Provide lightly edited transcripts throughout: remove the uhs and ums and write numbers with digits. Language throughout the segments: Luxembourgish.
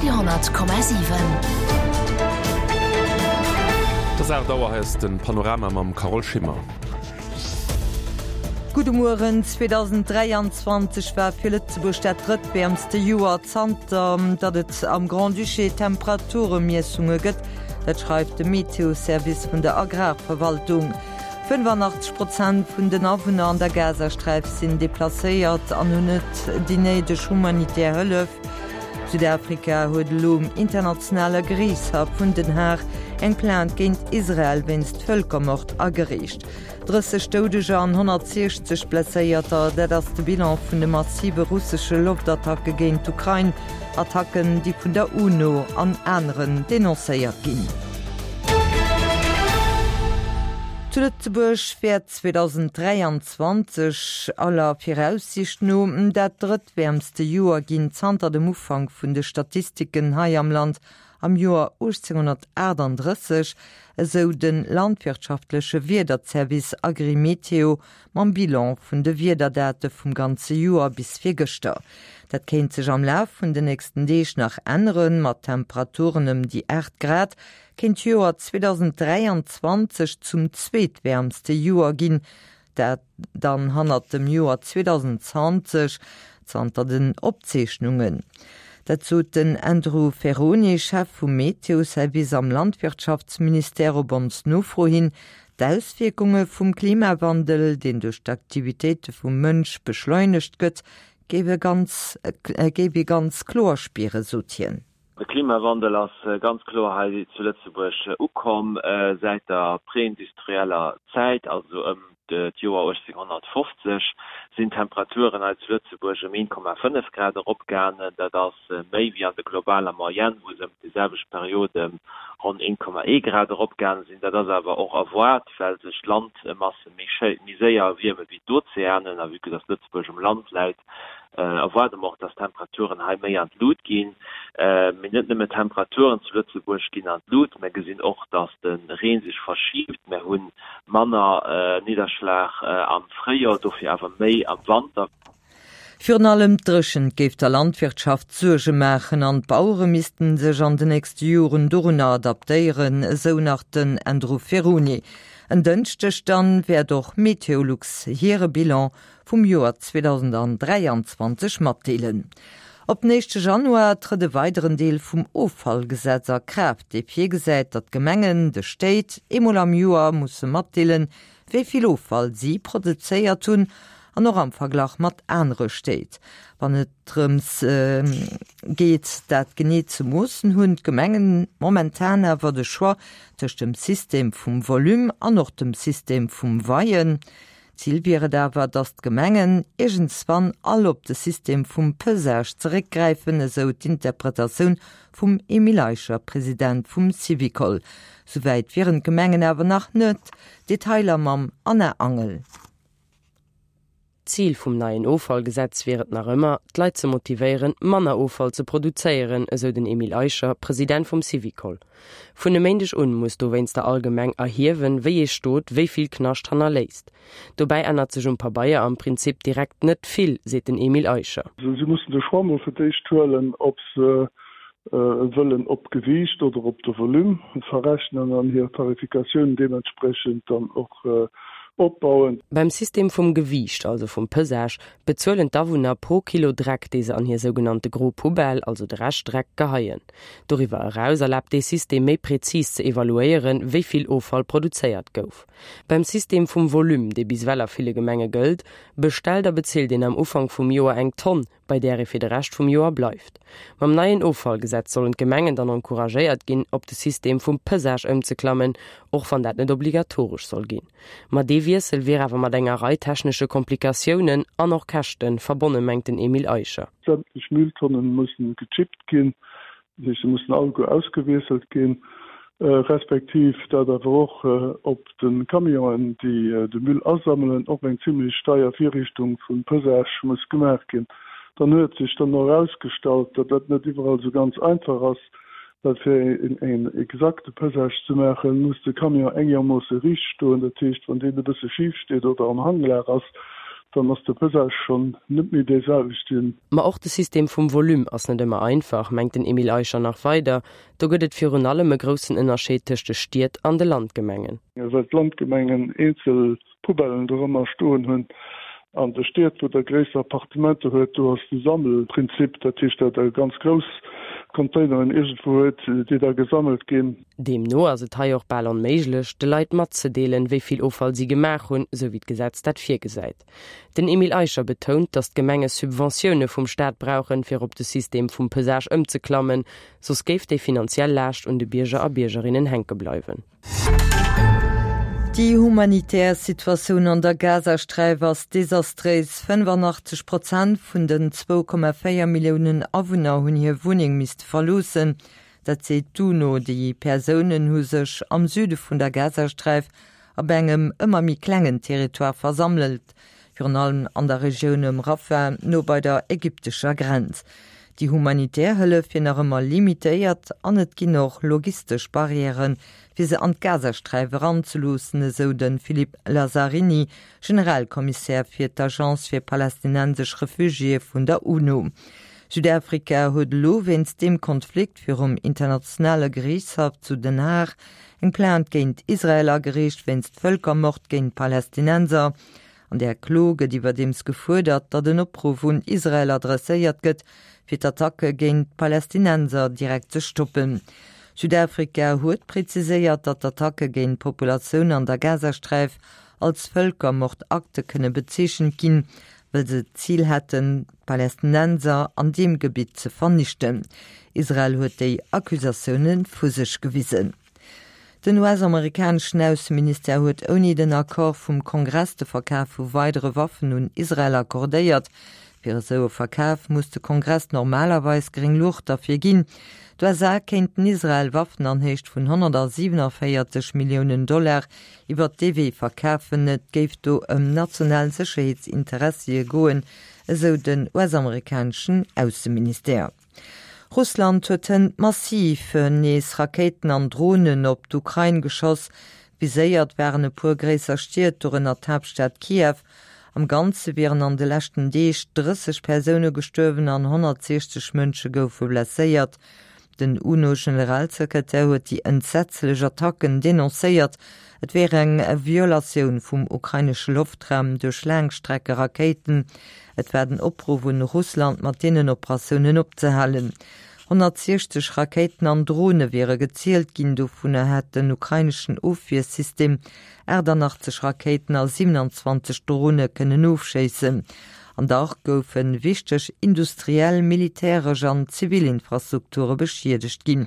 Radio,7. Et ass 8 Auer, hei ass de Panorama mam Carole Schimmer. Gudde Mueren. 2023 war fir Lëtzebuerg dat drëttwäermste Joer zanter datt et am Grand-Duché Temperaturemiessunge gëtt. Dat schreift de Meteoservice vun der Agrarverwaltung. 85 Prozent vun den Awunner an der Gazasträif sinn deplacéiert an hunn net déi néideg humanitär Hëllef. Südafrika huet elo um internationale Geriichtshaff vun Den Haag eng Plainte géint Israel wéinst Vëlkermord agereecht. 30 Doudeger an 160 Blesséierter, dat ass de Bilan vun de massive russesche Loftattacke géint d'Ukrain. Attacken, déi vun der UNO an aneren denoncéiert ginn. Zu Lëtzebuerg wäert 2023 aller Viraussiicht no dat drëttwäermste Joer ginn zanter dem Ufank vun de Statistiken hei am Land am Joer 1838, esou de landwirtschaftleche Wiederzervice Agrimeteo mam Bilan vun de Wiederdate vum ganze Joer bis virgëschter. Dat kéint sech am Laf vun de nächsten Deeg nach änneren, mat Temperaturen ëm déi 8 Grad kéint d'Joer 2023 zum zweetwäermste Joer ginn, dat dann hannert dem Joer 2020 zanter den Opzeechnungen. Dat sot den Andrew Ferrone, Chef vum Meteo-Service am Landwirtschaftsministère op ons Nofro hin. D'Auswierkunge vum Klimawandel, deen duerch d'Aktivitéite vum Mënsch beschleunegt gëtt, géif ee ganz kloer spieren, sot hien. De Klimawandel ass ganz kloer hei zu Lëtzebuerg ukomm säit der preindustrieller Zäit, also ëm d'Joer 1850 sinn d'Temperaturen hei zu Lëtzebuerg ëm 1,5 Grad eropgaangen. Dat ass méi wéi an der globaler Moyenne, wou se ëm déi selwecht Period ëm ronn 1,1 Grad eropgaange sinn. Dat ass awer och erwaart, well sech d'Landmasse méi séier erwierme wéi d'Ozeanen a vue que dass Lëtzebuerg um Land läit, erwaarde mer och, dass d'Temperaturen hei méi an d'Lut ginn. Mee net nëmme d'Temperaturen zu Lëtzebuerg ginn an d'Lut, mer gesinn och, dass de Reen sech verschiibt. Mer hu manner Nidderschlag am Fréijoer, dofir awer méi am Wanter. Virun allem d'Dréchent géif der Landwirtschaft Suerge maachen an d'Bauere missten sech an de nächste Joren dorunner adaptéieren, esou nach den Andrew Ferrone. En Dënschdeg dann wäert och Meteolux hire Bilan vum Joer 2023 matdeelen. Op den éischte Januar trëtt e weideren Deel vum Offallgesetz a Kraaft, dee virgesäit, datt d'Gemengen de Stéit eemol am Joer musse matdeelen, wéi vill Offall si produzéiert hunn an och am Verglach mat anere Stéit. Wann et drëms geet, dat genee ze moossen, hunn d'Gemengen momentan awer de Choix tëscht dem System vum Volume an och dem System vum Weien. Zil wier et awer, datt d'Gemengen iergendswann all op de System vum Pesage zeréckgräifen, esou d'Interpretatioun vum Emile Eicher, President vum Syvicol. Souwäit wieren d'Gemengen awer nach net. Detailer mam Anna Angel. D'Zil vum neien Offallgesetz wier et nach ëmmer, d'Leit ze motivéieren, manner Offall ze produzéieren, esou den Emile Eicher, President vum Syvicol. Vun e Méindeg un muss dowéinster all Gemeng erhiewen, wéi ee Stot wéi vill Knascht hannerléisst. Dobäi ännert sech um Pabeier am Prinzip direkt net vill, seet den Emile Eicher. Si mussen de Choix mol fir d'éischt huelen, ob se wëllen op d'Gewiicht oder op de Volume verrechnen an hir Tarifikatioun deementspriechend dann och opbauen. Beim System vum Gewiicht, also vum Pesage, bezuelen d'Awunner pro Kilo Dreck, dee se an hir sougenannte gro Poubelle, also de Reschtdreck, geheien. Doriwwer eraus erlaabt dee System méi prezis ze evaluéieren, wéi vill Offall produzéiert gouf. Beim System vum Volume, dee bis ewell a ville Gemenge gëllt, bestellt a bezilt een am Ufank vum Joer eng Tonn, bei där ee fir de Rescht vum Joer bleift. Mam neien Offallgesetz sollen d'Gemengen dann encouragéiert ginn, op de System vum Pesage ëmzeklammen, och wann dat net obligatoresch soll ginn. Ma dee Wiessel wier awer mat enger Rei technesche Komplikatiounen an och Käschte verbonne mengt den Emile Eicher. Sämtlech Mülltonnen mussen gechippt ginn, dat heescht se mussen alleguer ausgewiesselt ginn, respektiv dat awer och op de Camionen, déi de Müll asammelen, och eng zimlech deier Virrichtung vum Pesage muss gemaach ginn. Dann huet sech dann och erausgestallt, datt dat net iwwerall esou ganz einfach ass, well fir een exakte Pesage ze maachen, muss de Camion engermoosse riicht stoen. Dat heescht, wann deen e bësse schif steet oder am Hanglag ass, Dann ass de Pesage schonn net méi dee selwechten. Ma och de System vum Volume ass net ëmmer einfach, mengt den Emile Eicher nach weider. Do gëtt et virun allem e groussen Ënnerscheed tëscht de Stied an de Landgemengen. Well d'Landgemengen eenzel Poubellen dorëmmer stoen hunn. An de Stied, wou der gréisser Appartementer huet, do ass de Sammelprinzip, dat heescht, datt der ganz grouss Containeren iergendwou huet, déi da gesammelt ginn. Deemno ass et hei och bal onméiglech, de Leit matzedeelen, wéi vill Offall si gemaach hunn, sou wéi d'Gesetz dat virgesäit. Den Emile Eicher betount, datt d'Gemenge Subventioune vum Staat brauchen, fir op de System vum Pesage ëmzeklammen, soss géif déi finanziell Laascht un de Bierger a Biergerinnen hänke bleiwen. Déi humanitär Situatioun an der Gazasträif ass desastréis. 85 Prozent vun den 2,4 Milliounen Awunner hunn hir Wunneng misste verloossen. Dat seet d'UNO. Déi Persounen hu sech am Süde vun der Gazasträif op engem ëmmer méi klengen Territoire versammelt, virun allem an der Regioun ëm Rafah, no bei der ägyptescher Grenz. Déi humanitär Hëllef wier nach ëmmer limitéiert an et ginn och logistesch Barrièren, fir se an d'Gazasträif eranzeloossen, esou de Philippe Lazzarini, Generalkommissär fir d'Agence fir palästinensesch Refugiéë vun der UNO. Südafrika huet elo wéinst deem Konflikt virum internationale Geriichtshaff zu Den Haag eng Plainte géint Israel agereecht wéinst Vëlkermord géint Palästinenser. An där Klo gëtt iwwerdeems gefuerdert, datt en Opruff un Israel adresséiert gëtt, fir d'Attacke géint d'Palästinenser direkt ze stoppen. Südafrika huet preziséiert, datt d'Attacke géint d'Populatioun an der Gazasträif als Vëlkermordakte kënne bezeechent ginn, wëll se d'Zil hätten, d'Palästinenser an deem Gebitt ze vernichten. Israel huet déi Accusatioune vu sech gewisen. Den US-amerikaneschen Ausseministère huet ouni den Accord vum Kongress de Verkaf vu weidere Waffen un Israel accordéiert. Fir esou e Verkaf muss de Kongress normalerweis gréng Luucht derfir ginn. D'USA kéinten Israel Waffen an Héicht vun 147 Milliounen Dollar iwwert dee Wee verkafen. Et géif do ëm national Sécherheetsinteressie goen, esou den US-amerikaneschen Ausseministère. Russland huet hënt massiv nees Rakéiten an Dronen op d'Ukrain geschoss. Viséiert waren e puer gréisser Stied, dorënner d'Haaptstad Kiew. Am Ganze wieren an de leschten Deeg 30 Persoune gestuerwen an 160 Mënsche goufe blesséiert. Den UNO-Generalsekretär huet déi entsetzlech Attacken denoncéiert. Et wier eng Violatioun vum ukrainesche Loftraum duerch Laangstreckerakéiten. Et war den Opruff un Russland, mat deenen Operatiounen opzehalen. 160 Rakéiten an Drone wiere gezielt ginn, dovunner hätt den ukraineschen Ofwiersystem 88 Rakéiten a 27 Drone kënnen ofschéissen. An dach goufe wichteg industriell, militäresch an zivil Infrastrukture beschiedegt ginn.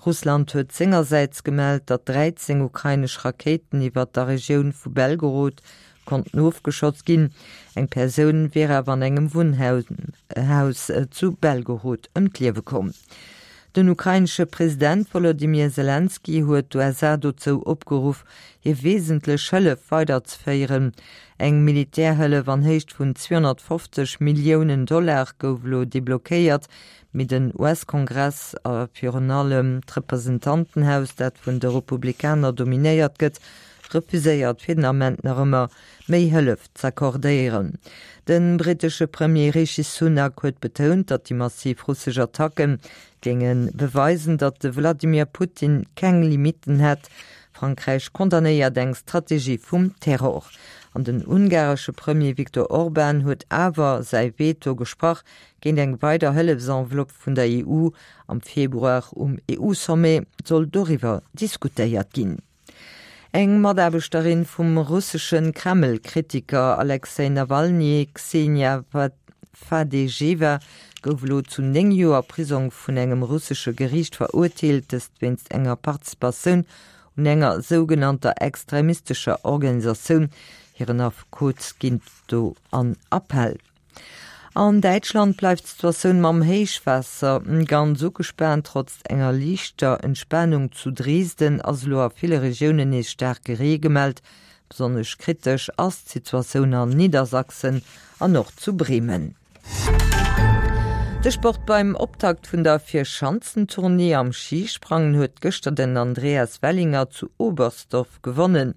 Russland huet sengersäits gemellt, datt 13 ukrainesch Rakéiten iwwer der Regioun vu Belgorod konnten ofgeschoss ginn. Eng Persoun wier awer an engem Wunnhaus zu Belgorod ëm d'Liewe komm. Den ukrainesche President Wolodymyr Selenskyj huet d'USA dozou opgeruff, hir wesentlech Hëllef weiderzeféieren. Eng Militärhëllef an Héicht vun 250 Milliounen Dollar gouf elo deblockéiert, mee den US-Kongress a virun allem d'Representantenhaus, dat vun de Republikaner dominéiert gëtt, refuséiert fir den Ament nach ëmmer méi Hëllef z'accordéieren. De brittesche Premier Rishi Sunak huet betount, datt déi massiv russesch Attacke géinge beweisen, datt de Wladimir Putin keng Limitten hätt. Frankräich condamnéiert eng Strategie vum Terror. An den ungaresche Premier Viktor Orban huet awer säi Veto gesprach géint eng weider Hëllefsenveloppe vun der EU. Am Februar um EU-Sommet soll doriwwer diskutéiert ginn. Eng Mataarbechterin vum russesche Kreml-Kritiker Alexej Nawalny, Ksenia Fadejewa, gouf elo zu 9 Joer Prisong vun engem russesche Geriicht verurteelt, dëst wéinst enger Participatioun un enger sougenannter extremistescher Organisatioun. Hiren Affekot geet do an Appell. An Däitschland bleift d'Situatioun mam Héichwaasser ganz ugespaant. Trotz enger liichter Entspanung zu Dresden ass elo a ville Regiounen nees staarke Ree gemellt. Besonnesch kritesch ass d'Situatioun an Niedersachsen an och zu Bremen. De Sport Beim Optakt vun der Vierschanzentournée am Schisprangen huet gëschter den Andreas Wellinger zu Oberstdorf gewonnen.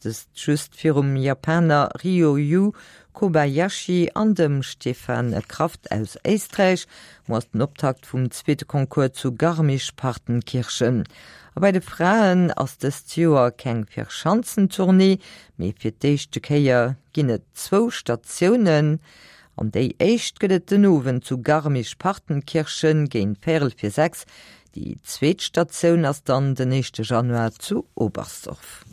Dëst just virum Japaner Ryo Yu. Kobayashi an dem Stefan Kraft aus Éisträich. Muer ass den Optakt vum zweete Concours zu Garmisch-Partenkirchen. A bei de Fraen ass dëst Joer keng Vierschanzentournée, mee fir d'éischte Kéier ginn et zwou Statiounen. An déi éischt gëtt et den Owend zu Garmisch-Partenkirchen géint véierel fir 6. Déi zweet Statioun ass dann den éischte Januar zu Oberstdorf.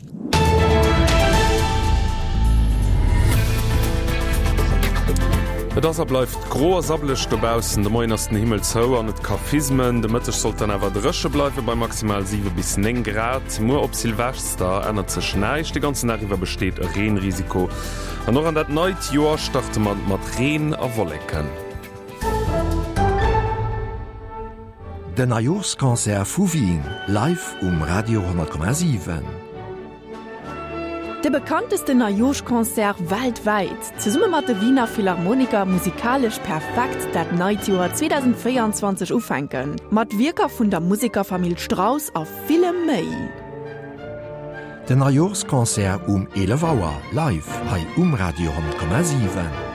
Et ass a bleift gro a sabbeleg dobaussen. De Moien ass den Himmel zou an et ka fismen. De Mëtteg sollt dann awer dréche bleiwe bei maximal 7 bis 9 Grad. Muer op Silvester ännert sech näischt, de ganzen Dag iwwer besteet e Reenrisiko. An och an dat neit Joer starte mer mat Reen a Wolleken. Den Neijooschconcert vu Wien live um Radio 10,7. De bekanntesten Neijooschconcert weltwäit! Zesumme mat de Wiener Philharmoniker musikalesch perfekt dat neit Joer 2024 ufänken, mat Wierker vun der Musekerfamill Strauss a villem méi. Den Neijooschconcert um 11 Auer live hei um Radio 10,7.